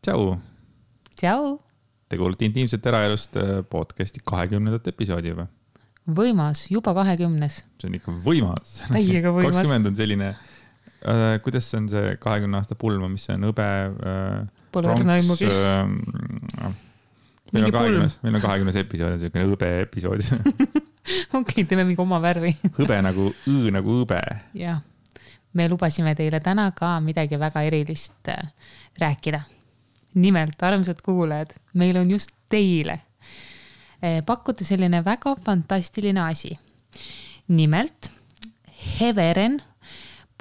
Tšau! Tšau! Te kuulete Intiimset eraelust podcasti 20. episoodi juba. Võimas, juba 20. See on ikka võimas. Täiega võimas. 20 on selline, kuidas see on see 20 aasta pulma, mis see on õbe, pronks, meil on 20 episood, on selline õbe episood. Okei, teeme mingi oma värvi. Hõbe nagu õbe. Jah, me lubasime teile täna ka midagi väga erilist rääkida. Nimelt, armsad kuulajad, meil on just teile pakkuda selline väga fantastiline asi. Nimelt, heveren.ee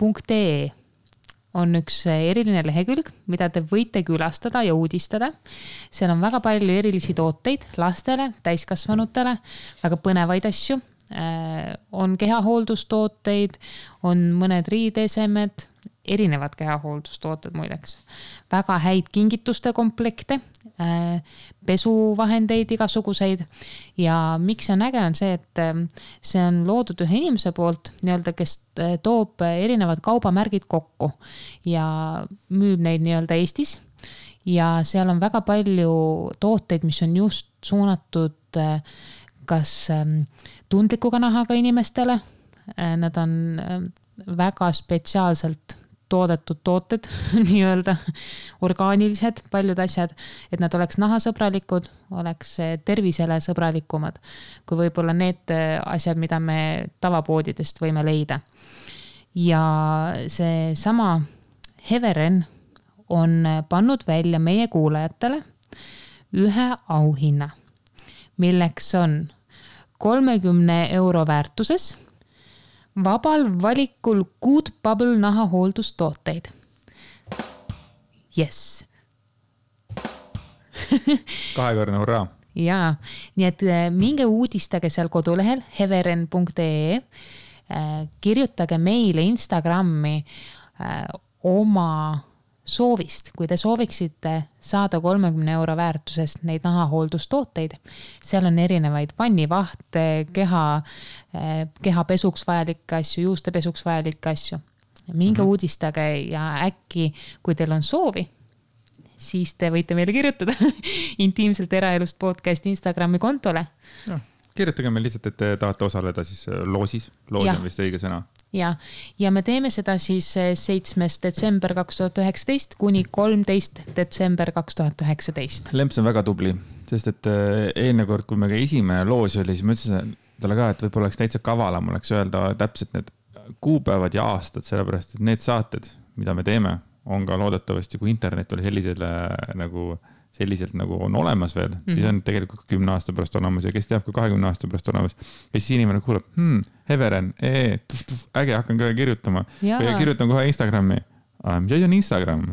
on üks eriline lehekülg, mida te võite külastada ja uudistada. Seal on väga palju erilisi tooteid lastele, täiskasvanutele, väga põnevaid asju. On kehahooldustooteid, on mõned riideesemed, erinevad kehahooldustooted muideks. Väga häid kingituste komplekte, pesuvahendeid igasuguseid ja miks see on äge on see, et see on loodud ühe inimese poolt, nii-öelda, kes toob erinevad kaubamärgid kokku ja müüb neid nii-öelda Eestis ja seal on väga palju tooteid, mis on just suunatud kas tundlikuga nahaga inimestele, nad on väga spetsiaalselt toodetud tooted, nii-öelda orgaanilised, paljud asjad, et nad oleks nahasõbralikud, oleks tervisele sõbralikumad, kui võib-olla need asjad, mida me tavapoodidest võime leida. Ja see sama Heveren on pannud välja meie kuulajatele ühe auhinna, milleks on 30 € väärtuses vabal valikul Good Bubble nahahooldustooteid. Yes. Kahekordne hurraa. Jaa, nii et minge uudistage seal kodulehel heveren.ee, kirjutage meile Instagrammi oma soovist, kui te sooviksite saada 30 € väärtusest neid nahahooldustooteid. Seal on erinevaid pannivahte, keha pesuks vajalikke asju, juuste pesuks vajalikke asju. Minge uudistage ja äkki, kui teil on soovi, siis te võite meile kirjutada Intiimselt eraelust podcast Instagrami kontole. Ja, kirjutage meil lihtsalt, et te tahate osaleda siis loosis. Loos on vist õige sõna. Ja me teeme seda siis 7. detsember 2019 kuni 13. detsember 2019. Lemps on väga tubli, sest et eelne kord, kui me ka esimene loos oli, siis ma ütlesin talle ka, et võib-olla oleks täitsa kavalam oleks öelda täpselt need kuupäevad ja aastad, sellepärast et need saated, mida me teeme, on ka loodetavasti, kui internet oli selliselt nagu on olemas veel, siis on tegelikult 10 aasta pärast olemas ja kes teab ka 20 aasta pärast olemas. Ja siis inimene kuuleb, Heveren, äge, hakkan kohe kirjutama. Ja kirjutan kohe Instagrami. Mis asi on Instagram?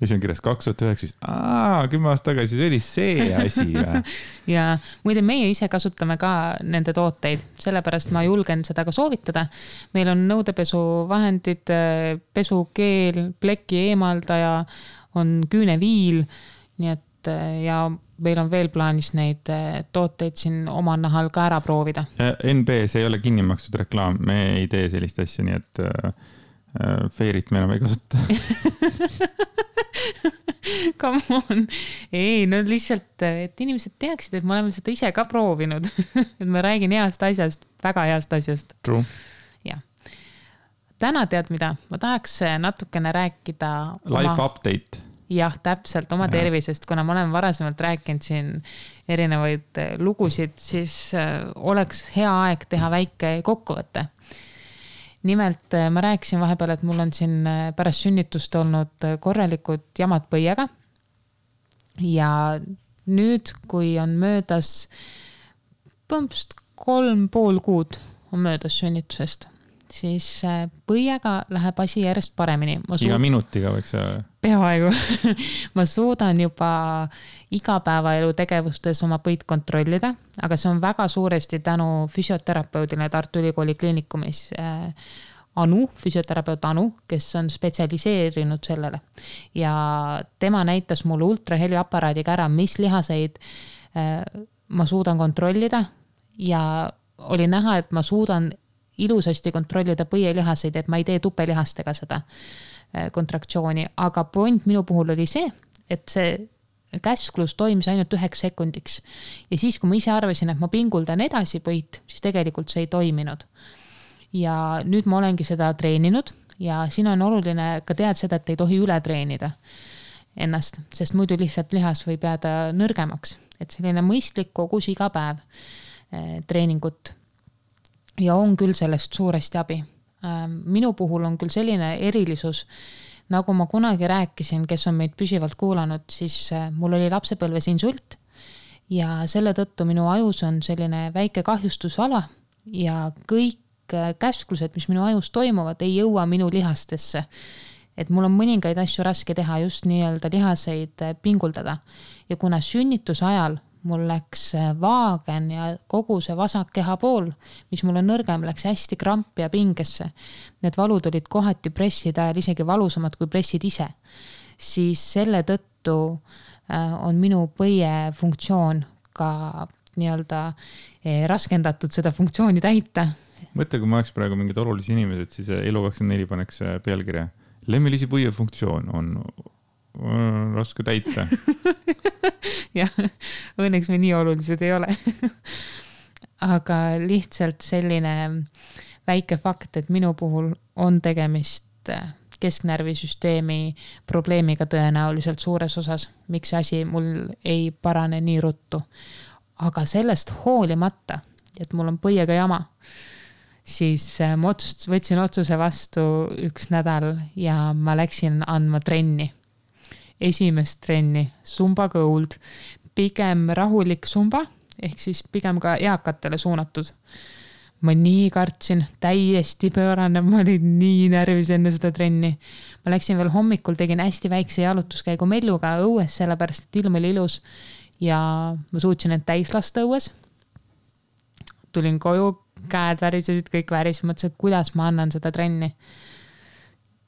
Ja siis on kirjas 2019. 10 aasta tagasi, see oli see asi. Ja muide, meie ise kasutame ka nende tooteid, sellepärast ma julgen seda ka soovitada. Meil on nõudepesuvahendid, pesukeel, pleki eemaldaja, on küüneviil, nii et ja meil on veel plaanis neid tooteid siin oma nahal ka ära proovida. NB, see ei ole kinni makstud reklaam, me ei tee sellist asja, nii et feirit me enam ei kasuta. Come on. Ei, no lihtsalt, et inimesed teaksid, et me oleme seda ise ka proovinud. Et ma räägin heast asjast, väga heast asjast. True. Ja. Täna tead mida? Ma tahaks natukene rääkida Life update. Jah, täpselt oma tervisest, kuna ma olen varasemalt rääkinud siin erinevaid lugusid, siis oleks hea aeg teha väike kokkuvõte. Nimelt ma rääkisin vahepeal, et mul on siin pärast sünnitust olnud korralikud jamad põiega. Ja nüüd, kui on möödas 3,5 kuud on möödas sünnitusest, siis põiega läheb asi järjest paremini. Iga minutiga võiks peaaegu. Ma suudan juba igapäevaelu tegevustes oma põid kontrollida, aga see on väga suuresti tänu füsioterapeudile Tartu Ülikooli kliinikumis füsioterapeut Anu, kes on spetsialiseerinud sellele. Ja tema näitas mulle ultraheliaparaadiga ära, mis lihaseid ma suudan kontrollida ja oli näha, et ma suudan ilusasti kontrollida põielihaseid, et ma ei tee tupelihastega seda kontraktsiooni, aga point minu puhul oli see, et see käsklus toimis ainult 1 sekundiks. Ja siis, kui ma ise arvasin, et ma pinguldan edasi põit, siis tegelikult see ei toiminud. Ja nüüd ma olengi seda treeninud ja siin on oluline ka teada seda, et ei tohi üle treenida ennast, sest muidu lihtsalt lihas võib jääda nõrgemaks. Et selline mõistlik kogus iga päev treeningut ja on küll sellest suuresti abi. Minu puhul on küll selline erilisus, nagu ma kunagi rääkisin, kes on meid püsivalt kuulanud, siis mul oli lapsepõlves insult ja selle tõttu minu ajus on selline väike kahjustusala ja kõik käsklused, mis minu ajus toimuvad, ei jõua minu lihastesse. Et mul on mõningaid asju raske teha, just nii-öelda lihaseid pinguldada. Ja kuna sünnituse ajal mul läks vaagen ja kogu see vasak keha pool, mis mul on nõrgem, läks hästi krampi ja pingesse. Need valud olid kohati presside ajal isegi valusamad kui pressid ise. Siis selle tõttu on minu põie funktsioon ka nii-öelda raskendatud seda funktsiooni täita. Mõtle, kui ma oleks praegu mingid olulisi inimesed, siis Elu24 paneks pealkirja. Lemmilisi põie funktsioon on raske täita. Jah, õnneks me nii olulised ei ole. Aga lihtsalt selline väike fakt, et minu puhul on tegemist kesknärvisüsteemi probleemiga tõenäoliselt suures osas, miks see asi mul ei parane nii ruttu. Aga sellest hoolimata, et mul on põiega jama, siis ma võtsin otsuse vastu 1 nädal ja ma läksin andma trenni. Esimest trenni, Zumba Gold, pigem rahulik Zumba, ehk siis pigem ka eakatele suunatud. Ma nii kartsin, täiesti pöörane, ma olin nii närvis enne seda trenni. Ma läksin veel hommikul, tegin hästi väikse jalutuskäigu Melluga õues, sellepärast et ilm oli ilus ja ma suutsin end täis lasta õues. Tulin koju, käed värisesid, kõik väris, mõtlesin, et kuidas ma annan seda trenni.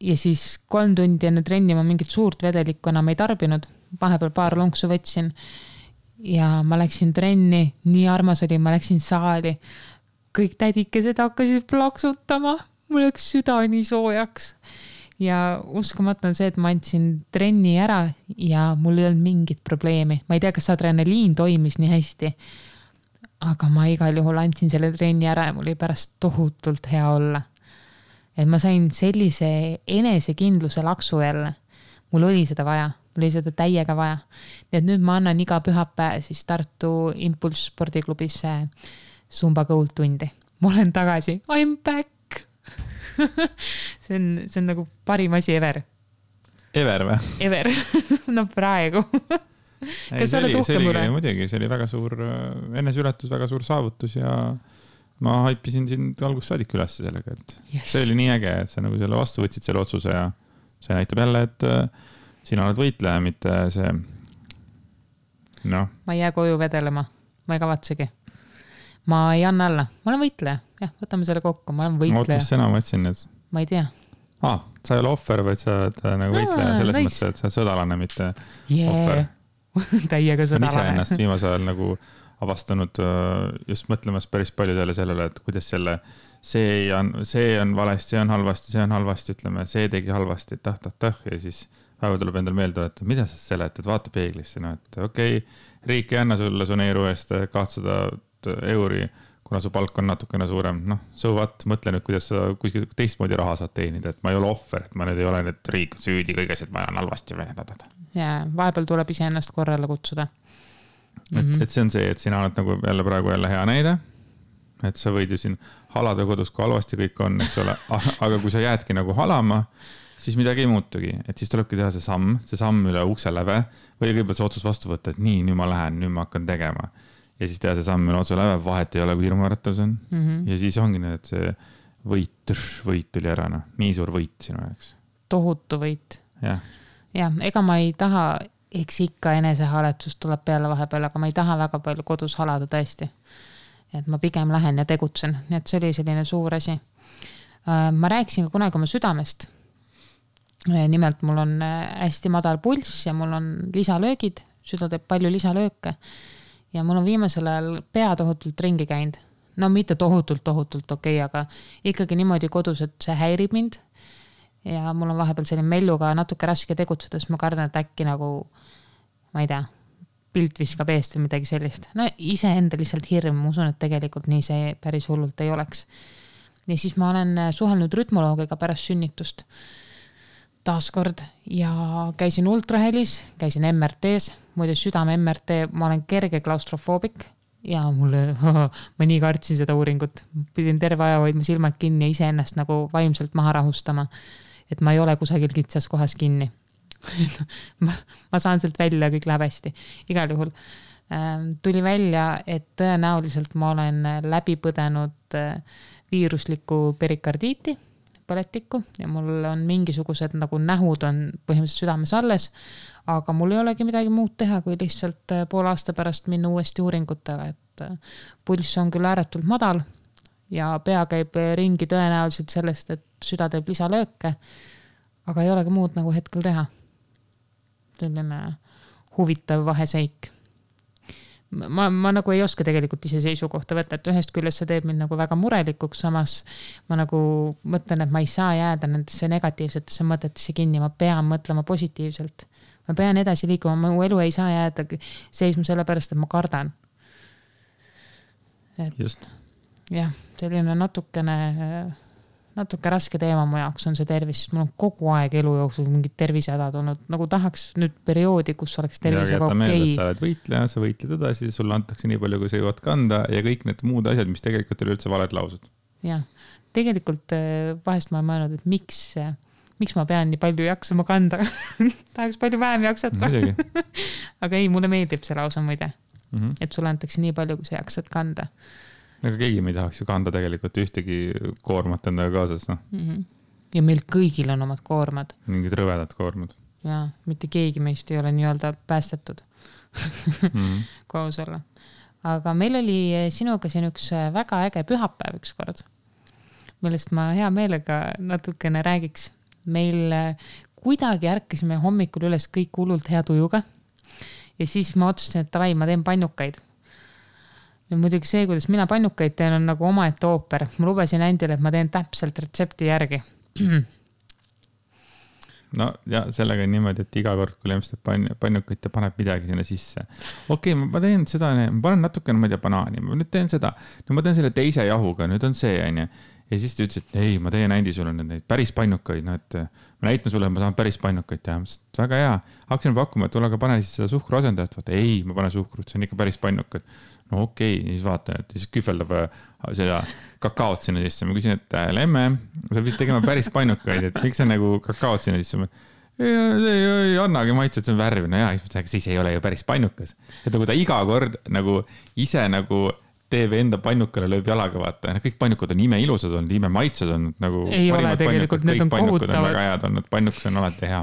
Ja siis 3 tundi enne trenni ma mingit suurt vedelikku enam ei tarbinud. Vahepeal paar lonksu võtsin ja ma läksin trenni, nii armas oli, ma läksin saali. Kõik tädikesed hakkasid plaksutama, mul läks süda nii soojaks. Ja uskumatu on see, et ma andsin trenni ära ja mul ei olnud mingit probleemi. Ma ei tea, kas adrenaliin toimis nii hästi, aga ma igal juhul andsin selle trenni ära ja mul oli pärast tohutult hea olla. Et ma sain sellise enesekindluse laksu jälle. Mul oli seda vaja, mul oli seda täiega vaja. Nii et nüüd ma annan iga pühapäev siis Tartu Impulse spordiklubis Zumba Gold tundi. Ma olen tagasi, I'm back! see on nagu parim asi ever. Ever või? Ever, no praegu. Kas sa oled uhke mure? Muidugi, see oli väga suur eneseületus, väga suur saavutus ja ma haipisin sind algusest saadik üles sellega, et see oli nii äge, et sa nagu selle vastu võtsid selle otsuse ja see näitab jälle, et sina oled võitleja, mitte see Ma ei jää koju vedelema, ma ei kavatsegi. Ma ei anna alla, ma olen võitleja. Jah, võtame selle kokku, ma olen võitleja. Mis sõna ma ütlesin nüüd? Ma ei tea. Sa ei ole ohver, vaid sa oled nagu võitleja selles mõttes, et sa oled sõdalane, mitte ohver. Täiega sõdalane. Ma ise ennast viimase ajal nagu avastanud just mõtlemas päris palju sellele, et kuidas see on valesti, see on halvasti, ütleme, see tegi halvasti, ja siis päeva tuleb endal meelde, et mida sa seletad, vaata peeglisse, et okei, riik ei anna sulle su neeru eest 200 euri, kuna su palk on natukene suurem, mõtle nüüd, kuidas sa kuskil teistmoodi raha saad teenida, et ma ei ole ohver, et ma nüüd ei ole nüüd riik süüdi kõiges, et ma olen halvasti vedada. Ja vahepeal tuleb ise ennast korrale kutsuda. Et see on see, et sina oled nagu praegu hea näide, et sa võid ju siin halada kodus, kui halvasti kõik on, eks ole, aga kui sa jäädki nagu halama, siis midagi ei muutugi, et siis tulebki teha see samm üle ukse läve või kõigepealt see otsus vastu võtta, et nii, nüüd ma lähen, nüüd ma hakkan tegema ja siis teha see samm üle otse läve, vahet ei ole, kui hirmuäratus on ja siis ongi need, et see võit tuli ära, nii suur võit sinu jaoks. Tohutu võit. Ja, ega ma ei taha eks ikka enesehaaletsus tuleb peale vahepeal, aga ma ei taha väga palju kodus halada tõesti. Et ma pigem lähen ja tegutsen, nii et see oli selline suur asi. Ma rääkisin ka kunagi oma südamest. Nimelt mul on hästi madal pulss ja mul on lisalöögid, süda teeb palju lisalööke ja mul on viimasel ajal pea tohutult ringi käinud. No mitte tohutult okei, aga ikkagi niimoodi kodus, et see häirib mind ja mul on vahepeal selline Melluga natuke raske tegutsedes, ma kardan, et äkki nagu ma ei tea, pilt viskab eest või midagi sellist. No iseenda lihtsalt hirm, ma usun, et tegelikult nii see päris hullult ei oleks. Ja siis ma olen suhelnud rütmoloogiga pärast sünnitust taaskord ja käisin ultrahelis, käisin MRT-s, muide südame MRT, ma olen kerge klaustrofoobik ja mulle, ma nii kartsin seda uuringut, pidin terve aja hoidma silmad kinni ja iseennast nagu vaimselt maha rahustama, et ma ei ole kusagil kitsas kohas kinni. ma saan sealt välja, kõik läheb hästi. Igal juhul tuli välja, et tõenäoliselt ma olen läbi põdenud viiruslikku perikardiiti, põletikku ja mul on mingisugused nagu nähud on põhimõtteliselt südames alles, aga mul ei olegi midagi muud teha, kui lihtsalt pool aasta pärast minna uuesti uuringutele, et pulss on küll ääretult madal ja pea käib ringi tõenäoliselt sellest, et süda teeb lisalööke, aga ei olegi muud nagu hetkel teha. Selline huvitav vaheseik. Ma nagu ei oska tegelikult ise seisukohta võtta, et ühest küljest see teeb mind nagu väga murelikuks, samas ma nagu mõtlen, et ma ei saa jääda nendesse negatiivsetesse mõtetesse kinni, ma pean mõtlema positiivselt. Ma pean edasi liikuma, mu elu ei saa jääda seisma sellepärast, et ma kardan. Just. Jah, selline natuke raske teema mu jaoks on see tervis, mul on kogu aeg elu jooksul mingid tervisehädad olnud, nagu tahaks nüüd perioodi, kus oleks tervisega okei. Sa oled võitleja, sa võitled edasi, sulle antakse nii palju, kui sa jõuad kanda ja kõik need muud asjad, mis tegelikult oli üldse valed laused. Jah, tegelikult vahest ma olen mõelnud, et miks ma pean nii palju jaksama kanda. Tahaks palju vähem jaksata. Aga ei, mulle meeldib see lausa muide, et sulle antakse nii palju, kui sa jaksad kanda. Aga keegi me ei tahaks ju kanda tegelikult ühtegi koormat endaga kaasas. No. Ja meil kõigil on omad koormad. Mingid rõvedad koormad. Ja mitte keegi meist ei ole nii-öelda päästetud koos olla. Aga meil oli sinuga siin üks väga äge pühapäev üks kord, millest ma hea meelega natukene räägiks. Meil kuidagi ärkasime hommikul üles kõik hullult hea tujuga ja siis ma otsustasin, et tavai, ma teen pannukaid. Ja muidugi see, kuidas mina pannukaid teen, on nagu omaette ooper. Ma lubasin Andile, et ma teen täpselt retsepti järgi. No ja sellega on niimoodi, et iga kord, kui lemstab pannukaid, ta paneb midagi sinna sisse. Okei, ma teen seda, ma panen natukene, ma ei tea, banaani, ma nüüd teen seda. No ma teen selle teise jahuga, nüüd on see, on ju. Ja siis ta ütles, et ei, ma teen Andi sulle neid päris pannukaid, no et ma näitan sulle, et ma saan päris pannukaid teha. Väga hea. Hakkasin pakkuma, et tule aga pane siis seda suhkru asendajat. Vaata, ei, ma pane suhkrut, see on ikka päris pannukad. No okei, siis vaatan, et siis kühveldab seda kakaot sinna sisse. Ma küsin, et lemme, sa pidid tegema päris pannukaid, et miks sa nagu kakaot sinna sisse? Ei annagi maitse, et see on värv. No jaa, siis ei ole ju päris pannukas. Et nagu ta iga kord nagu ise nagu teeb enda pannukale, lööb jalaga vaata. Kõik pannukad on ime ilusad olnud, ime maitsed on nagu ei ole tegelikult, need on kohutavad. On väga head olnud, pannukas on alati hea.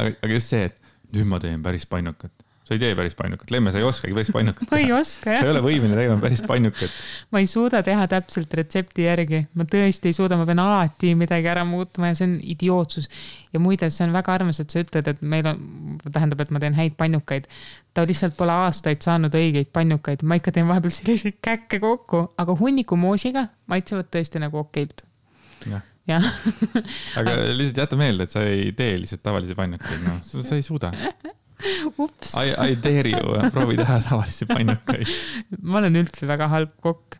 Aga just see, et nüüd ma teen päris pannukat. Sa ei tee päris pannukat. Lemme, sa ei oskagi päris pannukat. Ma ei oska, jah. Sa ei ole võimeline tegema päris pannukat. Ma ei suuda teha täpselt retsepti järgi. Ma tõesti ei suuda, ma pean alati midagi ära muutma ja see on idiootsus. Ja muide, see on väga armas, et sa ütled, et meil on, tähendab, et ma teen häid pannukaid. Ta lihtsalt pole aastaid saanud õigeid pannukaid. Ma ikka teen vahepeal selliseid käkke kokku, aga hunniku moosiga maitsevad tõesti nagu okeilt. Ja. Aga lihtsalt jäta meelde, et sa ei tee lihtsalt tavalisi pannukaid. No, sa ei suuda. Ups. I dare you, proovi teha tavalisi pannukaid. Ma olen üldse väga halb kokk.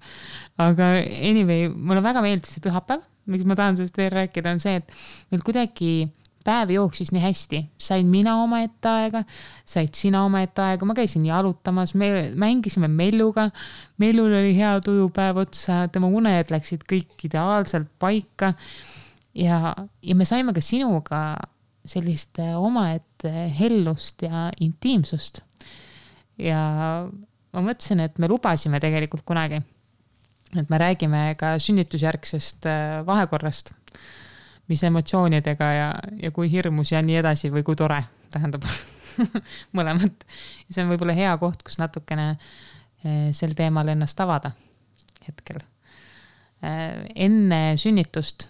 Aga anyway, mulle väga meeldis see pühapäev. Miks ma tahan sellest veel rääkida on see, et meil kuidagi päev jooksis nii hästi. Sain mina oma ette aega, said sina oma ette aega. Ma käisin jalutamas, me mängisime Melluga. Mellul oli hea tujupäev otsa, tema uned läksid kõik ideaalselt paika. Ja me saime ka sinuga sellist omaette hellust ja intiimsust. Ja ma mõtlesin, et me lubasime tegelikult kunagi, et me räägime ka sünnitusjärgsest vahekorrast, mis emotsioonidega ja kui hirmus ja nii edasi või kui tore, tähendab mõlemat. See on võib-olla hea koht, kus natukene sel teemal ennast avada hetkel. Enne sünnitust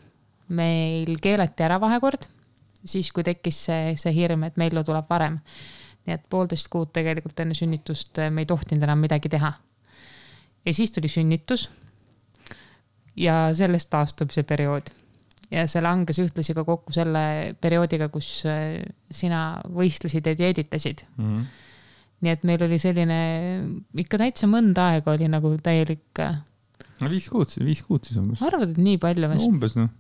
meil keelati ära vahekord, siis kui tekkis see hirm, et Mellu tuleb varem. Nii et 1,5 kuud tegelikult enne sünnitust me ei tohtinud enam midagi teha. Ja siis tuli sünnitus ja sellest taastub see periood. ja see langes ühtlasi ka kokku selle perioodiga, kus sina võistlesid ja dieeditasid. Nii et meil oli selline, ikka täitsa mõnda aega oli nagu täielik... No 5 kuud siis umbes. Arvad, et nii palju? No, umbes noh.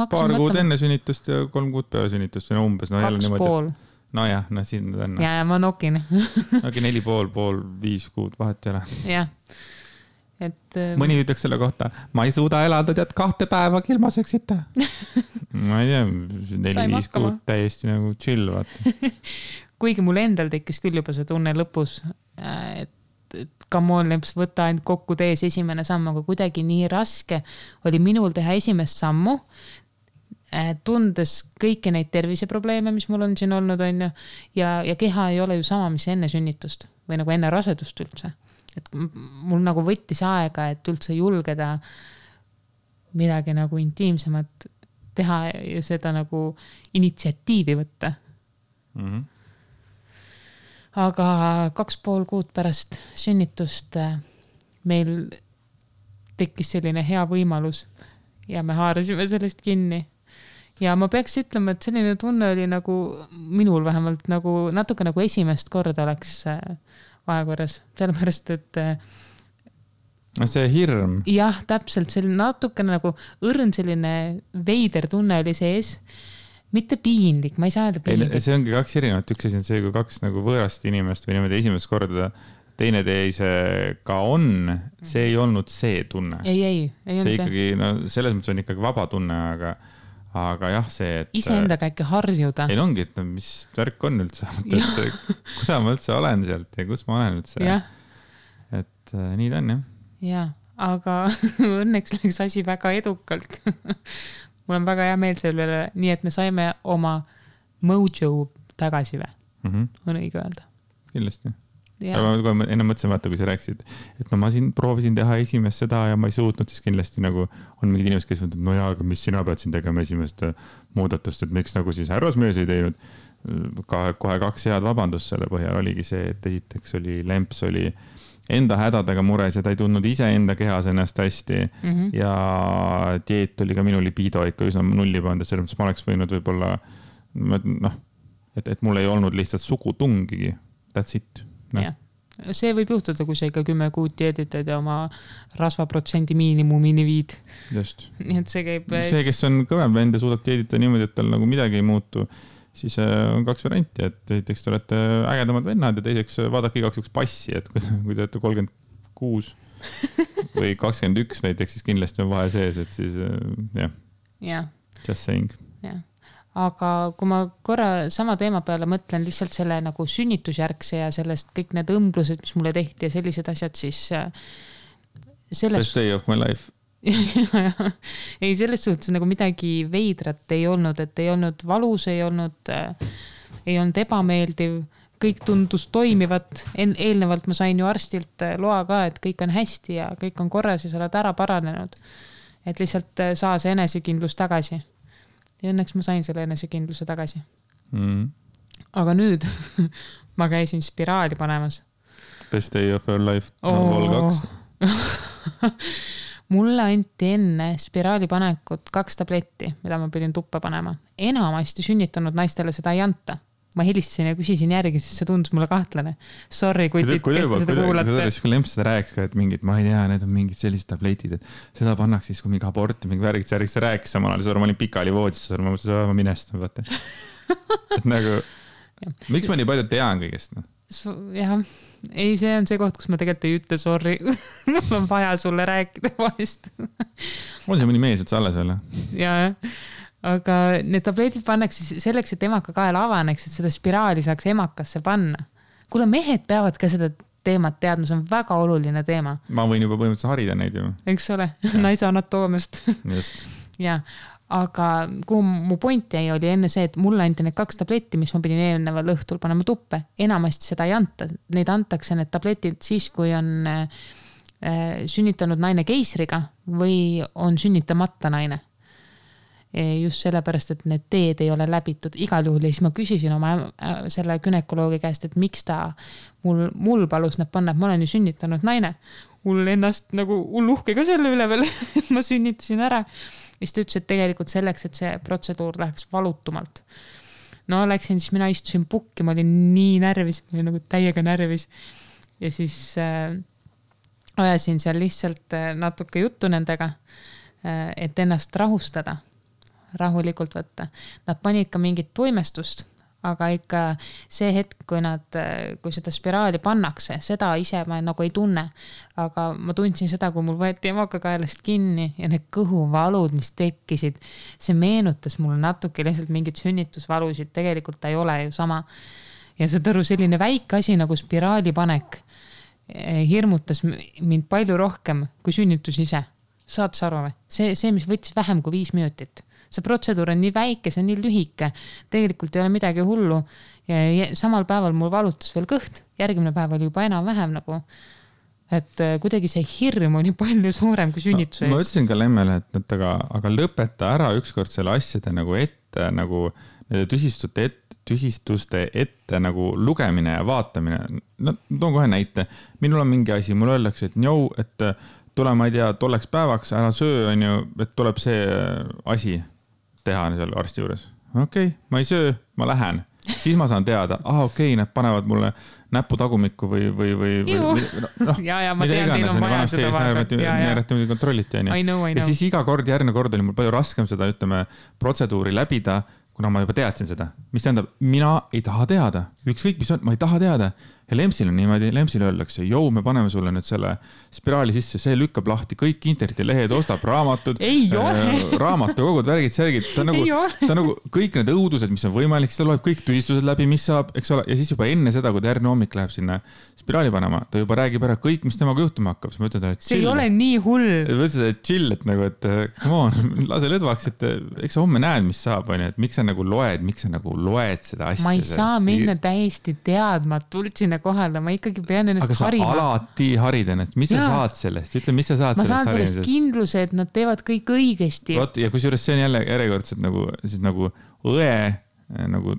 Paar kuud enne sünnitust ja 3 kuud peale sünnitust. No umbes, no 2,5. No jah, no siin on. Ja ma nokin. Aga 4,5, 5 kuud vahet ei ole. Jah. Et, mõni ütleks selle kohta, ma ei suuda elada, tead 2 päeva ilma seksita. Ma ei tea, 4-5 kuud täiesti nagu chill, vaata. Kuigi mul endal tekkis küll juba see tunne lõpus, et come on, lemps, võta ainult kokku tees esimene samm, aga kuidagi nii raske oli minul teha esimest sammu, tundes kõiki neid terviseprobleeme, mis mul on siin olnud, on ju, ja keha ei ole ju sama, mis enne sünnitust või nagu enne rasedust üldse. Et mul nagu võttis aega, et üldse julgeda midagi nagu intiimsemat teha ja seda nagu initsiatiivi võtta. Aga 2,5 kuud pärast sünnitust meil tekkis selline hea võimalus ja me haarasime sellest kinni. Ja ma peaks ütlema, et selline tunne oli nagu minul vähemalt nagu natuke nagu esimest korda oleks vahekorras, sellepärast, et see hirm. Jah, täpselt, selline natuke nagu õrn selline veider tunne oli sees. Mitte piinlik, ma ei saa öelda piinlik. See ongi 2 erinevat, üks asi on see, kui 2 nagu võõrast inimest või niimoodi esimest korda teine teisega on, see ei olnud see tunne. Ei see ikkagi, no selles mõttes on ikkagi vaba tunne, aga jah, see, et... Iseendaga äkki harjuda. Ei ongi, et mis värk on üldse, et kuda ma üldse olen sealt ja kus ma olen üldse. Ja. Et nii ta on, jah. Ja, aga õnneks läks asi väga edukalt. Mul on väga hea meel selle üle, nii et me saime oma mojo tagasi või? On õige öelda. Kindlasti. Aga ma enne mõtlesin, vaata, kui sa rääksid, et no ma siin proovisin teha esimest seda ja ma ei suutnud, siis kindlasti nagu on mingid inimesed, kes ütlevad, no jaa, aga mis sina pead siin tegema esimest muudatust, et miks nagu siis härrasmees ei teinud. Kohe 2 head vabandust selle põhjal oligi see, et esiteks oli lemps oli enda hädadega mures ja ta ei tundnud ise enda kehas ennast hästi ja dieet oli ka minu libido ikka üsna nulli pandud, selles mõttes ma oleks võinud võib-olla, noh, et mul ei olnud lihtsalt sugutungigi, that's it. No. Ja. See võib juhtuda, kui sa ikka 10 kuud dieeditad ja oma rasvaprotsendi miinimumini viid. Just. Nii et see käib... See, kes on kõvem vend ja suudab dieedita niimoodi, et tal nagu midagi ei muutu, siis on 2 varianti, et esiteks te olete ägedamad vennad ja teiseks vaadake igaks üks passi, et kui te olete 36 või 21 näiteks, siis kindlasti on vahe sees, et siis jah. Yeah. Just saying. Yeah. Aga kui ma korra sama teema peale mõtlen lihtsalt selle nagu sünnitusjärgse ja sellest kõik need õmblused, mis mulle tehti ja sellised asjad, siis Best day of my life. Ei, selles suhtes nagu midagi veidrat ei olnud, et ei olnud valus, ei olnud ebameeldiv, kõik tundus toimivat. Eelnevalt ma sain ju arstilt loa ka, et kõik on hästi ja kõik on korras ja sa oled ära paranenud. Et lihtsalt saa see enesekindlus tagasi. Ja õnneks ma sain selle enesekindluse tagasi. Aga nüüd ma käisin spiraali panemas. Best day of your life. Vol 2. Mulle anti enne spiraali panekut 2 tabletti, mida ma pidin tuppa panema. Enamasti sünnitanud naistele seda ei anta. Ma helistasin ja küsisin järgi, siis see tundus mulle kahtlane. Sorry, kes te seda kuulate. Kui lemps seda rääkis ka, et mingid, ma ei tea, need on mingid sellised tabletid, et seda pannaks siis, kui mingi aborti, mingi värgid, sa rääkis samal ajal, ma olin pikali voodis, ma mõtlesin, ma minestan, vaata. Et nagu, miks ma nii palju tean kõigest? Jah, ei, see on see koht, kus ma tegelikult ei ütle, sorry, mul on vaja sulle rääkida vahest. On see mõni mees üldse alles veel? Jaa, aga need tabletid pannaks selleks, et emaka kael avaneks, et seda spiraali saaks emakasse panna. Kuule, mehed peavad ka seda teemat teadma, see on väga oluline teema. Ma võin juba põhimõtteliselt harida neid ju. Eks ole, naise anatoomist. Just. Ja, aga kuhu mu point jäi oli enne see, et mulle anti need 2 tabletti, mis ma pidin eelneval õhtul panema tuppe. Enamasti seda ei anta. Neid antakse need tabletid siis, kui on sünnitanud naine keisriga või on sünnitamata naine. Just sellepärast, et need teed ei ole läbitud igal juhul ja siis ma küsisin oma selle günekoloogi käest, et miks ta mul palus need panna, et ma olen ju sünnitanud naine. Mul ennast nagu uhke ka selle üle veel, et ma sünnitasin ära. siis ta ütles, et tegelikult selleks, et see protseduur läheks valutumalt. No läksin, siis mina istusin pukki, ma olin nii närvis, ma olin nagu täiega närvis. Ja siis ajasin seal lihtsalt natuke juttu nendega, et ennast rahustada, rahulikult võtta. Nad panid ka mingit tuimestust, aga ikka see hetk, kui seda spiraali pannakse, seda ise ma nagu ei tunne. Aga ma tundsin seda, kui mul võeti emakakaelast kinni ja need kõhuvalud, mis tekkisid, see meenutas mulle natuke lihtsalt mingit sünnitusvalusid, tegelikult ta ei ole ju sama. Ja see selline väike asi nagu spiraali panek hirmutas mind palju rohkem kui sünnitus ise. Saad sa aru või? See, mis võttis vähem kui 5 minutit. See protseduur on nii väike, see on nii lühike. Tegelikult ei ole midagi hullu. Ja samal päeval mul valutas veel kõht. Järgmine päev oli juba enam vähem nagu. Et kuidagi see hirm oli palju suurem kui sünnituse ees. Ma ütlesin ka Lemmele, et aga lõpeta ära ükskord selle asjade nagu ette, nagu tüsistuste ette nagu lugemine ja vaatamine. No, toon kohe näite. Minul on mingi asi, mul öeldakse, et tule, ma ei tea, tolleks päevaks, ära söö, on ju, et tuleb see asi teha seal arsti juures. Okei, ma ei söö, ma lähen. Siis ma saan teada, okei, nad panevad mulle näppu tagumikku või ja ma tean, teil on vaja seda vaadata. Neeretimiga kontrolliti. Ja siis iga kord, järgmine kord oli mul palju raskem seda, ütleme, protseduuri läbida, kuna ma juba teadsin seda. Mis tähendab, mina ei taha teada. Ükskõik, mis on, ma ei taha teada. Ja Lemsil on niimoodi, Lemsil öeldakse, me paneme sulle nüüd selle spiraali sisse, see lükkab lahti kõik internetilehed, ostab raamatud, raamatukogud, värgid, särgid. Ta nagu kõik need õudused, mis on võimalik, seda loeb kõik tüsistused läbi, mis saab, eks ole. Ja siis juba enne seda, kui ta järgmine hommik läheb sinna spiraali panema, ta juba räägib ära kõik, mis temaga juhtuma hakkab. Ma ütlen, et see ei ole nii hull. Võtsid, et chill, et nagu, et come on, lase lõdvaks, et eks sa homme näed, mis saab, on, et miks sa nagu loed seda asja. Ma ei saa minna täiesti teadmatult sinna kohale, ma ikkagi pean ennast harima. Aga sa alati harid ennast, mis sa saad sellest? Ütle, mis sa saad sellest harimisest? Ma saan sellest kindluse, et nad teevad kõik õigesti. Ja kui juures see on jälle järjekordselt nagu õe nagu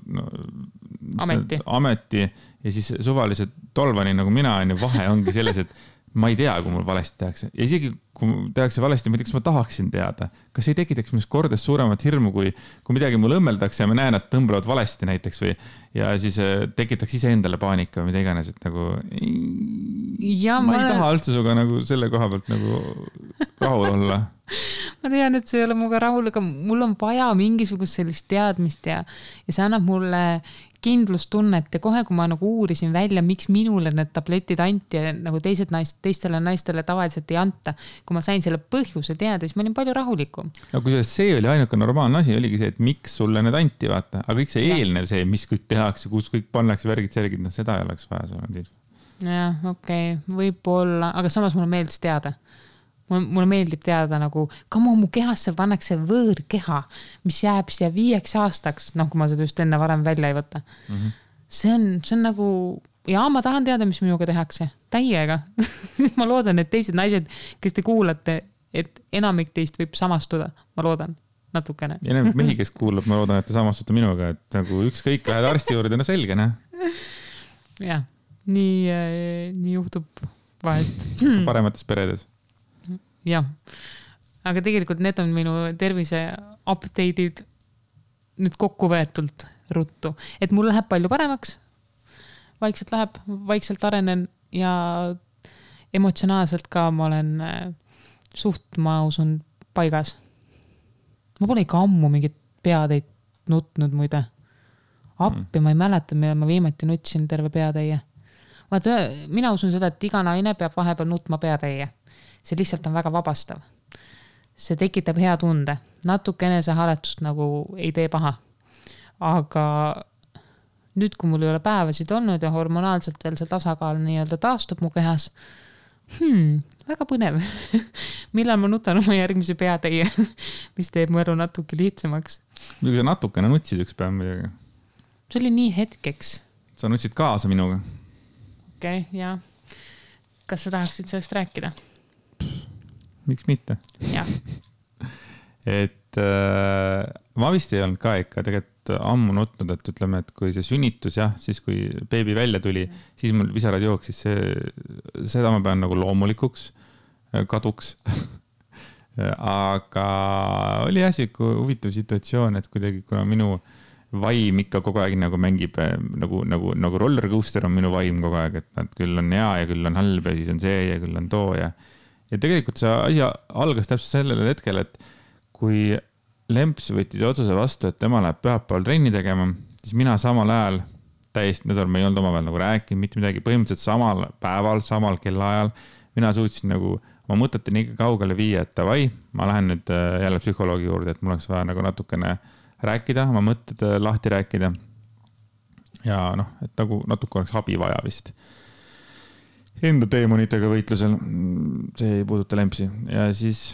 ameti ja siis suvalised tolvani nagu mina on ja vahe ongi selles, et ma ei tea, kui mul valesti tehakse. Ja isegi kui tehakse valesti, ma ei tea, kas ma tahaksin teada. Kas ei tekitaks minust kordades suuremat hirmu, kui midagi mul õmmeldakse ja ma näen, et tõmblevad valesti näiteks või ja siis tekitaks ise endale paanika või mida iganes, et nagu ma ei taha üldse suga nagu selle koha pealt nagu rahul olla. Ma tean, et see ei ole muga rahul, aga mul on vaja mingisugust sellist teadmist ja see annab mulle kindlustunnet ja kohe, kui ma nagu uurisin välja, miks minule need tabletid anti ja nagu teistele naistele tavaliselt ei anta. Kui ma sain selle põhjuse teada, siis ma olin palju rahulikum. No kui see oli ainuke normaalne asi, oligi see, et miks sulle need anti, vaata. Aga kõik see eelnev see, mis kõik tehakse, kus kõik pannakse värgid, särgid, seda ei oleks vaja sulle. Jah, okei, võib-olla, aga samas mulle meeldis teada. Mulle meeldib teada nagu, mu kehasse pannakse võõrkeha, mis jääb siia 5 aastaks, kui ma seda just enne varem välja ei võta. See on nagu, ma tahan teada, mis minuga tehakse. Täiega. Ma loodan, et teised naised, kes te kuulate, et enamik teist võib samastuda. Ma loodan natukene. Ja enamik mehi, kes kuulab, ma loodan, et te samastute minuga, et nagu ükskõik lähed arsti juurde, selge, ne? Jah, nii juhtub vahest. Paremates peredes. Jah, aga tegelikult need on minu tervise update'id nüüd kokku võetult ruttu, et mul läheb palju paremaks, vaikselt arenen ja emotsionaalselt ka ma olen ma usun paigas. Ma pole ikka ammu mingit peatäit nutnud muide. Appi ma ei mäleta, millal ma viimati nutsin terve peatäie. Mina usun seda, et iga naine peab vahepeal nutma peatäie. See lihtsalt on väga vabastav. See tekitab hea tunde. Natuke enesehaletust nagu ei tee paha. Aga nüüd, kui mul ei ole päevasid olnud ja hormonaalselt veel see tasakaal nii-öelda taastub mu kehas, väga põnev. Millal ma nutan oma järgmise peatäie, mis teeb mu elu natuke lihtsamaks. Kui sa natukene nutsid üks päev midagi? See oli nii hetkeks. Sa nutsid kaasa minuga? Okei, jah. Kas sa tahaksid sellest rääkida? Miks mitte? Jah. Et ma vist ei olnud ka ikka tegelikult ammu nutnud, et ütleme, et kui see sünnitus, siis kui beebi välja tuli, siis mul visarad jooksis, seda ma pean nagu loomulikuks kaduks. aga oli siuke huvitav situatsioon, et kuidagi, kuna minu vaim ikka kogu aeg nagu mängib nagu roller coaster on minu vaim kogu aeg, et nad küll on hea ja küll on halb ja siis on see ja küll on too ja tegelikult see asi algas täpselt sellel hetkel, et kui Lemps võttis otsuse vastu, et tema läheb pühapäeval trenni tegema, siis mina samal ajal täiesti nädal me ei olnud omavahel nagu rääkinud, mitte midagi, põhimõtteliselt samal päeval, samal kellaajal mina suutsin nagu oma mõtete nii kaugele viia, et davai, ma lähen nüüd jälle psühholoogi juurde, et mul oleks vaja nagu natukene rääkida, oma mõtted lahti rääkida. Ja et nagu natuke oleks abi vaja vist. Enda teemonitega võitlusel, see ei puuduta Lempsi. Ja siis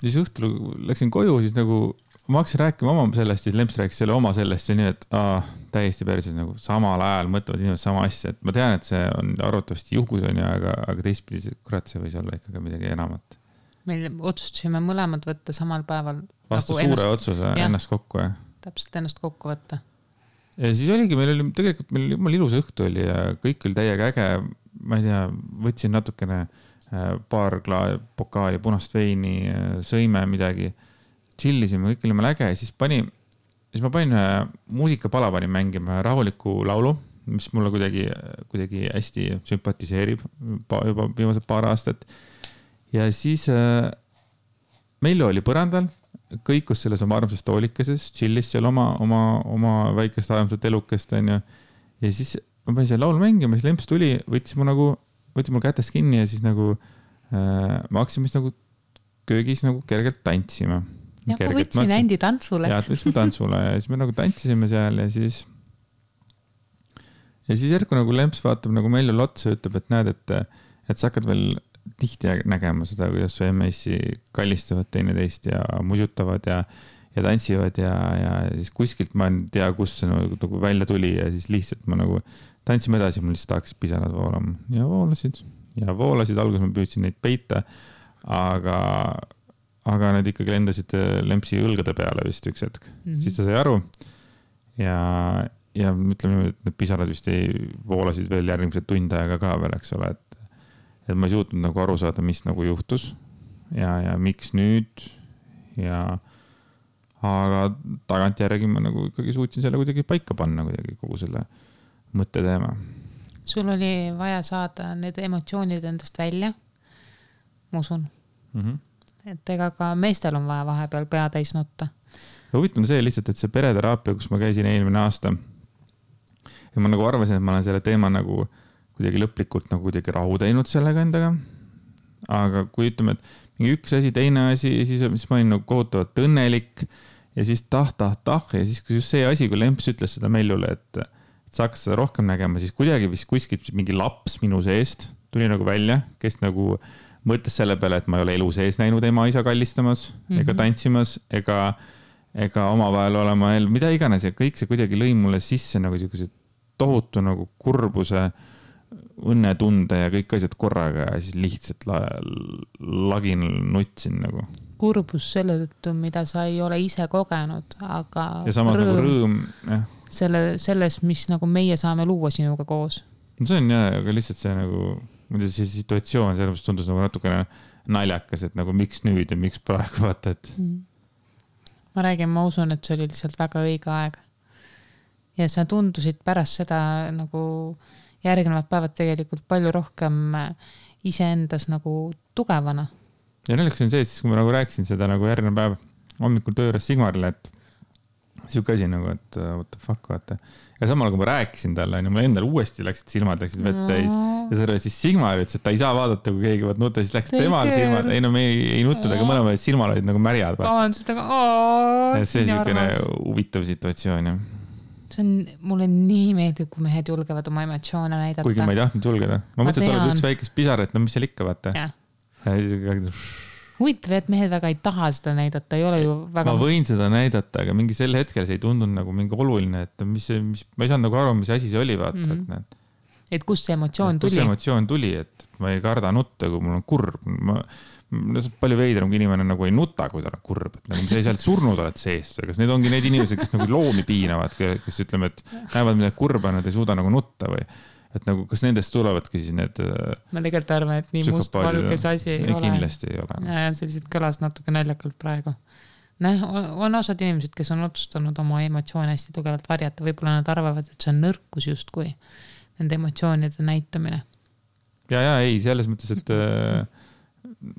õhtul läksin koju, siis nagu ma hakkasin rääkima oma sellest, siis Lemps rääkis selle oma sellest ja nii, et täiesti päriselt nagu samal ajal mõtlevad inimesed sama asja, et ma tean, et see on arvatavasti juhus on ju, aga teistpidi kurat, see võis olla ikkagi midagi enamat. Meil otsustasime mõlemad võtta samal päeval. Vastu nagu suure otsuse ennast kokku, jah. Täpselt ennast kokku võtta. Ja siis oligi, meil oli tegelikult meil ilus õhtu oli ja kõik oli täiega äge. Ma ei tea, võtsin natukene paar pokaali punast veini, sõime midagi. Chillisime, kõik olime äge ja siis ma panin muusikapala panin mängima rahuliku laulu, mis mulle kuidagi hästi sümpatiseerib juba viimased paar aastat. Ja siis Mello oli põrandal, kõikus selles oma armsas toolikeses, chillis seal oma väikest armsat elukest. Ja siis ma panin selle laulu mängima, siis Lemps tuli, võttis mul kätest kinni ja siis nagu ma hakkasin mis nagu köögis nagu kergelt tantsima. Ja ma võtsin Andi tantsule. Ja võtsime tantsule ja siis me nagu tantsisime seal ja siis järku nagu Lemps vaatab nagu Mello otsa ja ütleb, et näed, et sa hakkad veel tihti nägema seda, kuidas su MS-i kallistavad teineteist ja musutavad ja tantsivad ja siis kuskilt ma ei tea, kus see nagu välja tuli ja siis lihtsalt ma nagu tantsime edasi, mul lihtsalt hakkas pisarad voolama ja voolasid, alguses ma püüdsin neid peita, aga need ikkagi lendasid Lempsi õlgade peale vist üks hetk. Siis ta sai aru ja ütleme, et need pisarad vist voolasid veel järgmised tund aega ka veel, eks ole, et ma ei suutnud nagu aru saada, mis nagu juhtus ja miks nüüd aga tagantjärgi ma nagu ikkagi suutsin selle kuidagi paika panna kuidagi kogu selle mõtteteema. Sul oli vaja saada need emotsioonid endast välja, ma usun. Et ega ka meestel on vaja vahepeal pea täis nutta. Huvitav on see lihtsalt, et see pereteraapia, kus ma käisin eelmine aasta ja ma nagu arvasin, et ma olen selle teema nagu kuidagi lõplikult nagu kuidagi rahu teinud sellega endaga. Aga kui ütleme, et mingi üks asi, teine asi ja siis ma olin nagu kohutavalt õnnelik ja siis tah ja siis kui just see asi, kui Lemps ütles seda Mellule, et sa hakkas seda rohkem nägema, siis kuidagi vist kuskilt mingi laps minu seest tuli nagu välja, kes nagu mõtles selle peale, et ma ei ole elu sees näinud ema isa kallistamas ega tantsimas ega omavahel olema mida iganes ja kõik see kuidagi lõi mulle sisse nagu selline tohutu nagu kurbuse, õnnetunde ja kõik asjad korraga ja siis lihtsalt lagin nutsin nagu. Kurbus selle tõttu, mida sa ei ole ise kogenud, aga ja samas nagu rõõm selles, mis nagu meie saame luua sinuga koos. See on jah, aga lihtsalt see nagu see situatsioon, selles tundus nagu natukene naljakas, et nagu miks nüüd ja miks praegu vaata, et ma räägin, ma usun, et see oli lihtsalt väga õige aeg ja sa tundusid pärast seda nagu järgnevad päevad tegelikult palju rohkem iseendas nagu tugevana. Ja naljakas on see, et siis kui ma nagu rääkisin seda nagu järgnev päev hommikul tööres Sigmarile, et siuke asi nagu, et what the fuck, vaata. Ja samal kui ma rääkisin talle, mul endal uuesti silmad läksid vett täis ja selle siis Sigmar ütles, et ta ei saa vaadata, kui keegi võt nuta, siis läks temal silmad, me ei nuttud, aga mõlemad silmad olid nagu märjad. See on siukene huvitav situatsioon, jah. Mulle nii meeldib, kui mehed julgevad oma emotsioone näidata. Kuigi ma ei tahtnud julgeda. Ma mõtlen, et oled üks väikest pisar, et no mis seal ikka, vaata. Huvitav, et mehed väga ei taha seda näidata, ei ole ju väga... Ma võin seda näidata, aga mingi sel hetkel see ei tundunud nagu mingi oluline, et ma ei saanud nagu aru, mis asi see oli, vaata. Et kust see emotsioon tuli? Kust see emotsioon tuli, et ma ei karda nutta, kui mul on kurb. Palju veidram, kui inimene nagu ei nuta, kui ta on kurb. Et nagu sa ei sealt surnud oled seest. Kas need ongi need inimesed, kes nagu loomi piinavad, kes ütleme, et näevad midagi kurba, nad ei suuda nagu nutta või et nagu, kas nendest tulevadki siis need ma tegelikult arvan, et nii must-valge see asi ei ole. Kindlasti ei ole. Ja see lihtsalt kõlas natuke naljakalt praegu. On osad inimesed, kes on otsustanud oma emotsioone hästi tugevalt varjata, võib-olla nad arvavad, et see on nõrkus justkui nende emotsioonide näitamine. Ja, ei, selles mõttes, et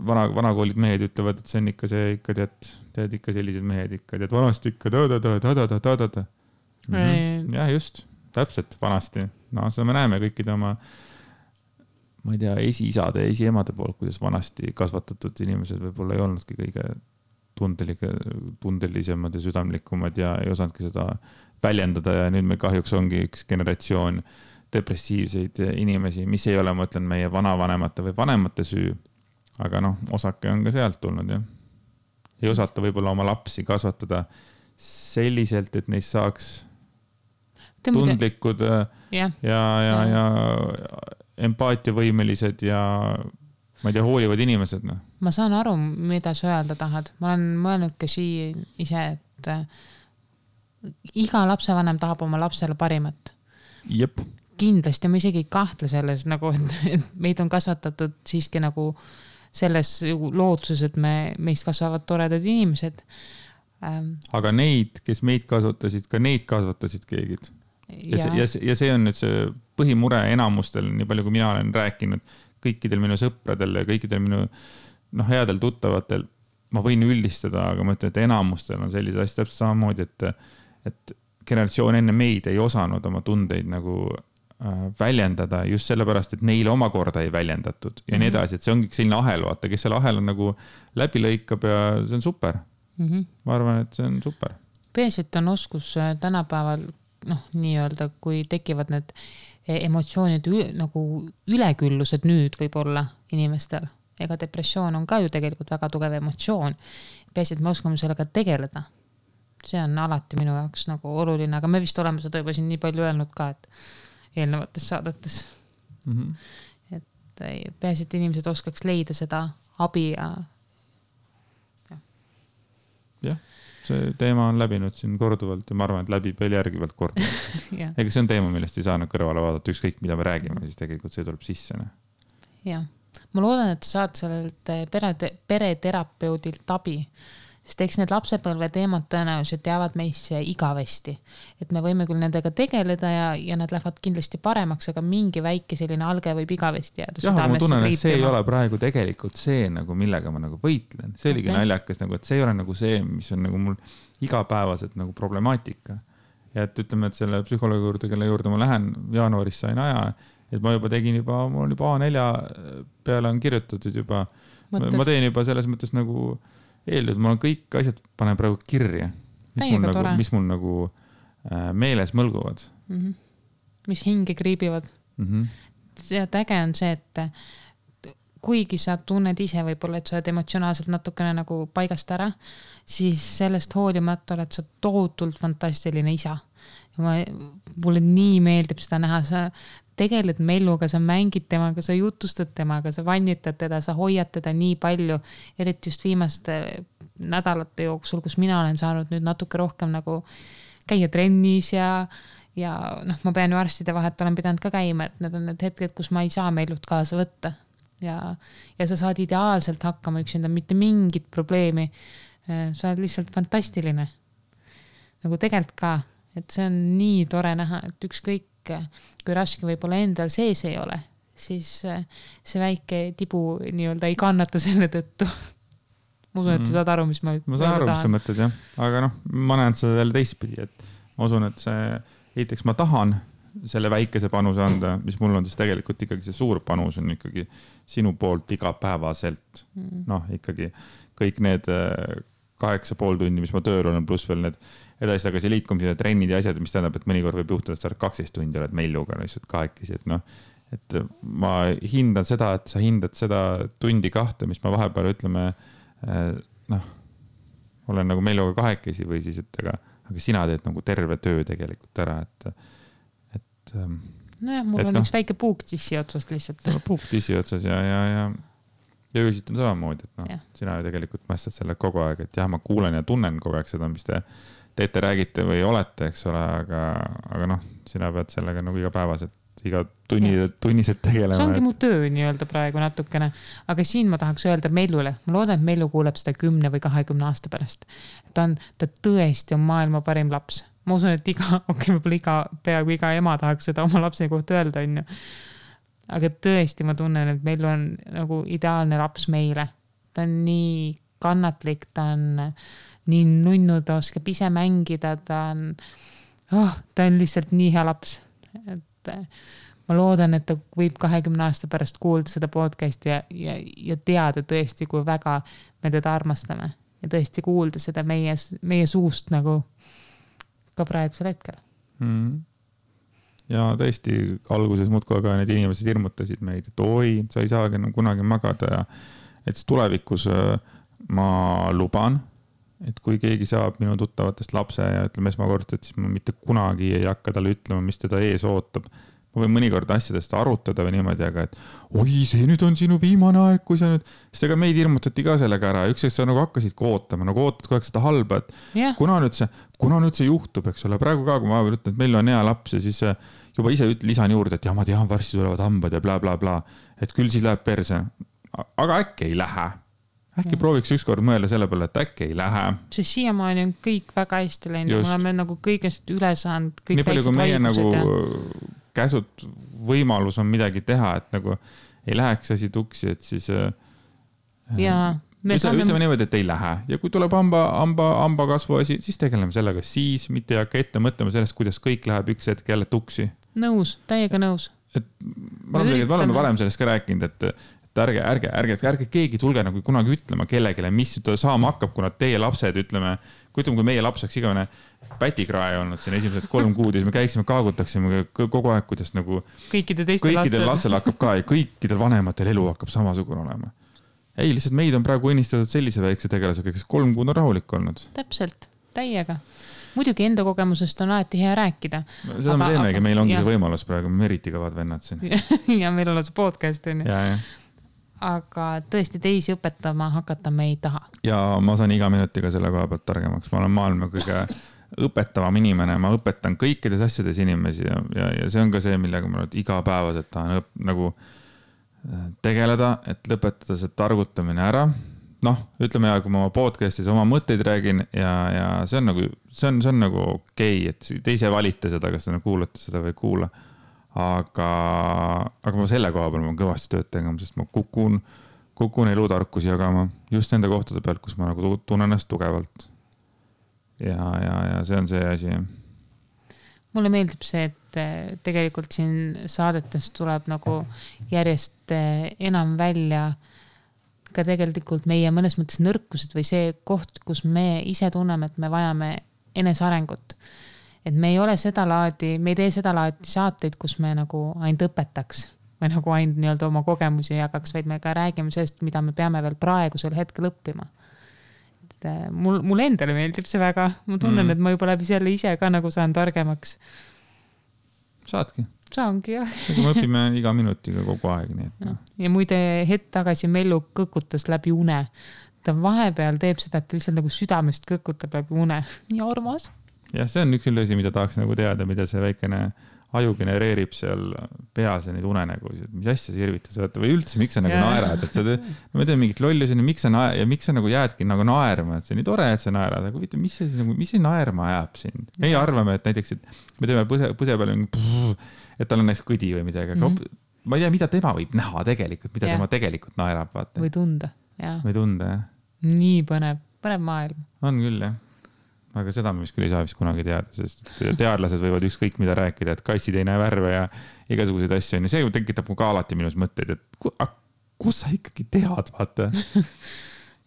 vanakoolid mehed ütlevad, et see on ikka see, ikka tead ikka sellised mehed ikka, tead vanasti ikka ta. Jah, just, täpselt vanasti. No seda me näeme kõikide oma, ma ei tea, esiisade ja esiemade poolt, kuidas vanasti kasvatatud inimesed võib-olla ei olnudki kõige tundelisemad ja südamlikumad ja ei osanudki seda väljendada ja nüüd me kahjuks ongi üks generatsioon depressiivseid inimesi, mis ei ole, ma ütlen, meie vanavanemate või vanemate süü, aga noh, osake on ka sealt tulnud, jah. Ei osata võib-olla oma lapsi kasvatada selliselt, et neist saaks tundlikud ja empaatiavõimelised ja ma ei tea, hoolivad inimesed, noh. Ma saan aru, mida sa öelda tahad. Ma olen mõelnud ka ise, et iga lapsevanem tahab oma lapsele parimat. Jep. Kindlasti ma isegi ei kahtle selles, nagu, et meid on kasvatatud siiski nagu selles lootuses, et meist kasvavad toredad inimesed. Aga neid, kes meid kasvatasid, ka neid kasvatasid keegid. Ja see on nüüd see põhimure enamustel, nii palju kui mina olen rääkinud, kõikidel minu sõpradel ja kõikidel minu headel tuttavatel, ma võin üldistada, aga ma ütlen, et enamustel on sellised asjad täpselt samamoodi, et generatsioon enne meid ei osanud oma tundeid nagu väljendada just sellepärast, et neile omakorda ei väljendatud ja nii edasi, et see ongi selline ahel, vaata, kes selle ahel on nagu läbi lõikab ja see on super. Ma arvan, et see on super. Peaselt on oskus tänapäeval, nii-öelda, kui tekivad need emotsioonid nagu üleküllused nüüd võib-olla inimestel. Ega depressioon on ka ju tegelikult väga tugev emotsioon. Peaselt me oskame sellega tegeleda. See on alati minu jaoks nagu oluline, aga me vist oleme seda juba siin nii palju öelnud ka, et eelnevates saadetes. Et peaselt inimesed oskaks leida seda abi ja. Jah. See teema on läbinud siin korduvalt ja ma arvan, et läbib veel järgivalt korduvalt. Ega see on teema, millest ei saa kõrvale vaadata, ükskõik mida me räägime, siis tegelikult see tuleb sisse. Jah. Ma loodan, et saad sellelt pereterapeudilt abi, sest eks need lapsepõlve teemad tõenäoliselt jäävad meisse igavesti. Et me võime küll nendega tegeleda ja nad lähevad kindlasti paremaks, aga mingi väike selline alge võib igavesti jääda. Jah, ma tunnen, et see ei ole praegu tegelikult see, nagu, millega ma nagu võitlen. See oligi naljakas, nagu, et see ei ole nagu see, mis on nagu mul igapäevaselt nagu problemaatika. Ja et ütleme, et selle psühholoogi juurde, kelle juurde ma lähen, jaanuaris sain aja, et ma juba tegin mul on juba A4 peale on kirjutatud juba. Ma teen juba selles mõttes nagu eeldud, ma olen kõik asjad panen praegu kirja, mis mul nagu meeles mõlguvad. Mis hinge kriibivad. See äge on see, et kuigi sa tunned ise võib-olla, et sa oled emotsionaalselt natukene nagu paigast ära, siis sellest hoolimata oled sa tohutult fantastiline isa. Mulle nii meeldib seda näha, sa tegeled Melluga, sa mängid temaga, sa jutustad temaga, sa vannitad teda, sa hoiad teda nii palju, eriti just viimaste nädalate jooksul, kus mina olen saanud nüüd natuke rohkem nagu käia trennis ja ma pean ju arstide vahet olen pidanud ka käima, et need on need hetked, kus ma ei saa Mellut kaasa võtta ja sa saad ideaalselt hakkama üksinda, mitte mingit probleemi. Sa oled lihtsalt fantastiline. Nagu tegelikult ka, et see on nii tore näha, et ükskõik kui raske võib-olla endal sees ei ole, siis see väike tibu nii-öelda ei kannata selle tõttu. Ma usun, et sa saad aru, mis ma saan aru, mis sa mõtled, jah. Aga ma näen seda jälle teistpidi, et ma usun, et esiteks ma tahan selle väikese panuse anda, mis mul on siis tegelikult ikkagi see suur panus on ikkagi sinu poolt igapäevaselt. Ikkagi kõik need 8,5 tundi, mis ma tööl olen, pluss veel need edasi tagasi liikumised ja trennid ja asjad, mis tähendab, et mõnikord võib juhtuda, et sa 12 tundi oled Melluga lihtsalt kahekesi, et ma hindan seda, et sa hindad seda tundi 2, mis ma vahepeal ütleme, olen nagu Melluga kahekesi või siis, et aga sina teed nagu terve töö tegelikult ära, mul on üks väike puuk tissi otsast lihtsalt. Puuk tissi otsas ja öösilt on samamoodi, et sina ju tegelikult mästad selle kogu aeg, et jah, ma kuulen ja tunnen kogu aeg seda, mis te teete, räägite või olete, eks ole, aga sina pead sellega nagu igapäevaselt iga tunniselt tegelema. See ongi mu töö nii-öelda praegu natukene, aga siin ma tahaks öelda Mellule, ma loodan, et Mellu kuuleb seda 10 või 20 aasta pärast. Ta tõesti on maailma parim laps. Ma usun, et võib-olla peaaegu iga ema tahaks seda oma lapse kohta öelda, on ju. Aga tõesti ma tunnen, et Mellu on nagu ideaalne laps meile. Ta on nii kannatlik, ta on nii nunnu, ta oskab ise mängida, ta on lihtsalt nii hea laps. Et ma loodan, et ta võib 20 aasta pärast kuulda seda podcasti ja teada tõesti, kui väga me teda armastame. Ja tõesti kuulda seda meie suust nagu ka praegusel hetkel. Ja tõesti alguses muudkui aga need inimesed hirmutasid meid, et oi, sa ei saagi kunagi magada ja et tulevikus ma luban, et kui keegi saab minu tuttavatest lapse ja ütleme esmakordselt, siis ma mitte kunagi ei hakka talle ütlema, mis teda ees ootab. Ma võin mõnikord asjadest arutada või niimoodi, aga et oi, see nüüd on sinu viimane aeg, kui sa nüüd... Sest ega meid hirmutati ka sellega ära. Üks sa nagu hakkasid ootama, nagu ootad kogu aeg seda halba, et kuna nüüd see juhtub, eks ole. Praegu ka, kui ma ütlen, et meil on hea laps ja siis juba ise lisan juurde, et ja ma tean, varsti tulevad hambad ja bla, bla, bla. Et küll siis läheb perse. Aga äkki ei lähe. Äkki prooviks ükskord mõelda selle peale, et äkki ei lähe. See siiamaani on kõik väga hästi läinud. Me oleme nagu kõigest üle saanud. Nii palju, kui meie nagu käsud võimalus on midagi teha, et nagu ei läheks asi tuksi, et siis ütleme niimoodi, et ei lähe. Ja kui tuleb hamba kasvu asi, siis tegeleme sellega siis, mitte ei hakka ette mõtlema sellest, kuidas kõik läheb üks hetk jälle tuksi. Nõus, täiega nõus. Me oleme varem sellest ka rääkinud, et ärge keegi tulge nagu kunagi ütlema kellegile, mis saama hakkab, kuna teie lapsed, ütleme, kui meie laps oleks igavene pätikrae olnud siin esimesed 3 kuud ja siis me käiksime, kaagutaksime kogu aeg, kuidas nagu kõikidel lastel hakkab ka ja kõikidel vanematel elu hakkab samasugune olema. Ei, lihtsalt meid on praegu õnnistatud sellise väikse tegelasega, kes 3 kuud on rahulik olnud. Täpselt, täiega. Muidugi enda kogemusest on alati hea rääkida. Seda me teemegi, meil ongi see võimalus praegu, me eriti kõvad vennad siin. Ja meil on see podcast. Ja. Aga tõesti teisi õpetama hakata me ei taha. Ja ma saan iga minutiga selle koha pealt targemaks. Ma olen maailma kõige õpetavam inimene. Ma õpetan kõikides asjades inimesi ja see on ka see, millega ma iga päevaselt tahan nagu tegeleda, et lõpetada see targutamine ära. Ütleme ja kui ma oma podcastis oma mõtteid räägin ja see on nagu okei, et te ise valite seda, kas te kuulate seda või kuula. Aga ma selle koha peal olen kõvasti tööd tegema, sest ma kukun elutarkusi jagama just nende kohtade pealt, kus ma nagu tunnen ennast tugevalt. Ja see on see asi. Mulle meeldib see, et tegelikult siin saadetes tuleb nagu järjest enam välja ka tegelikult meie mõnes mõttes nõrkused või see koht, kus me ise tunneme, et me vajame enesearengut. Et me ei ole seda laadi, me ei tee seda laadi saateid, kus me nagu ainult õpetaks või nagu ainult nii-öelda oma kogemusi jagaks, vaid me ka räägime sellest, mida me peame veel praegusel hetkel õppima. Mul endale meeldib see väga. Ma tunnen, et ma juba läbi selle ise ka nagu saan targemaks. Saadki. Saangi, jah. Me õpime iga minutiga kogu aeg. Nii et. Ja muide hetk tagasi Mellu kõkutas läbi une. Ta vahepeal teeb seda, et lihtsalt nagu südamest kõkutab läbi une. Nii armas. Jah, see on üks küll asi, mida tahaks nagu teada, mida see väikene aju genereerib seal peas ja neid unenägusid. Mis asja sa irvitad? Või üldse, miks sa nagu naerad? Et ma tean mingit lollusi, miks sa nagu jäädki nagu naerma? Et see on nii tore, et sa naerad. Aga mis see naerma ajab siin? Me ei arvame, et näiteks, et me teeme põse peale, et tal on näiteks kõdi või midagi. Aga ma ei tea, mida tema võib näha tegelikult, mida tema tegelikult naerab. Vaata. Või tunda. Või tunda, jah. Nii põnev maailm. On küll, jah. Aga seda me vist küll ei saa vist kunagi teada, sest teadlased võivad ükskõik mida rääkida, et kassid ei näe värve ja igasuguseid asju. Ja see tekitab mu ka alati minus mõtteid, et kus sa ikkagi tead, vaata?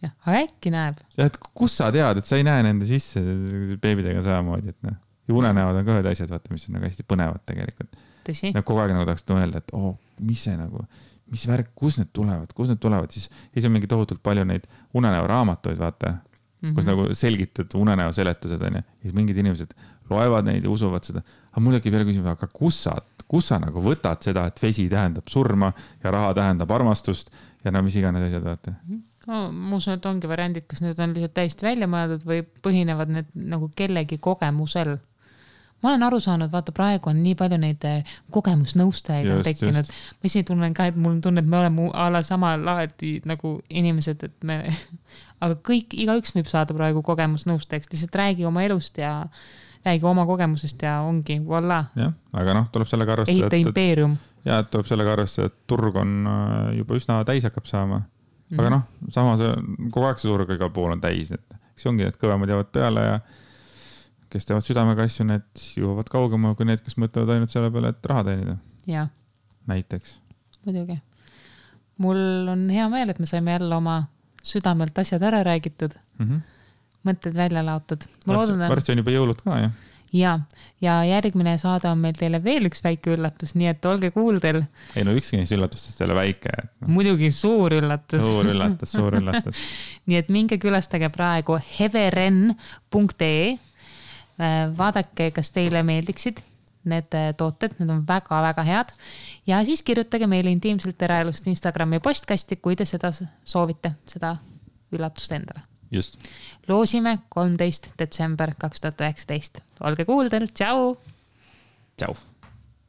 Jah, äkki näeb. Ja, et kus sa tead, et sa ei näe nende sisse beebidega samamoodi, et ja unenäod on ka ühed asjad, vaata, mis on nagu hästi põnevad tegelikult. Tõsi. Kogu aeg nagu tahaks mõelda, et mis see nagu, mis värk, kus need tulevad, siis on mingi tohutult palju neid unenäo raamatuid, vaata. Kus nagu selgitad unenäo seletused on ja siis mingid inimesed loevad neid ja usuvad seda. Aga mul äkki veel küsimus, aga kus sa nagu võtad seda, et vesi tähendab surma ja raha tähendab armastust ja mis iganes asjad vaata? Ma usun, et ongi variandid, kas need on lihtsalt täiesti välja mõeldud või põhinevad need nagu kellegi kogemusel. ma olen aru saanud, vaata praegu on nii palju neid kogemusnõustajaid on tekkinud. Ma isi tunnen ka, et mul on tunne, et me oleme ala sama laadi nagu inimesed, et me, aga igaüks võib saada praegu kogemusnõustajaks, lihtsalt räägi oma elust ja räägi oma kogemusest ja ongi, voila. jah, aga noh, tuleb sellega arvestada. Ehita impeerium. Ja tuleb sellega arvestada, et turg on juba üsna täis hakkab saama. Aga noh, samas kogu aeg see turg igal pool on täis. See ongi, et kõvemad jäävad peale ja kes teevad südamega asju, need jõuavad kaugema kui need, kes mõtlevad ainult selle peale, et raha teenida. Ja. Näiteks. Muidugi. Mul on hea meel, et me saime jälle oma südamelt asjad ära räägitud. Mõtted välja laotud. Varsti on juba jõulud ka, jah? Ja järgmine saade on meil teile veel üks väike üllatus, nii et olge kuuldel. Ei no ükski neist üllatustest ei ole väike. Muidugi suur üllatus. Suur üllatus. Nii et minge külastage praegu heveren.ee. Vaadake, kas teile meeldiksid need tooted, need on väga-väga head. Ja siis kirjutage meile intiimselt eraelust Instagrami postkasti, kui te seda soovite, seda üllatust endale. Just. Loosime 13. detsember 2019. Olge kuuldel, tšau! Tšau!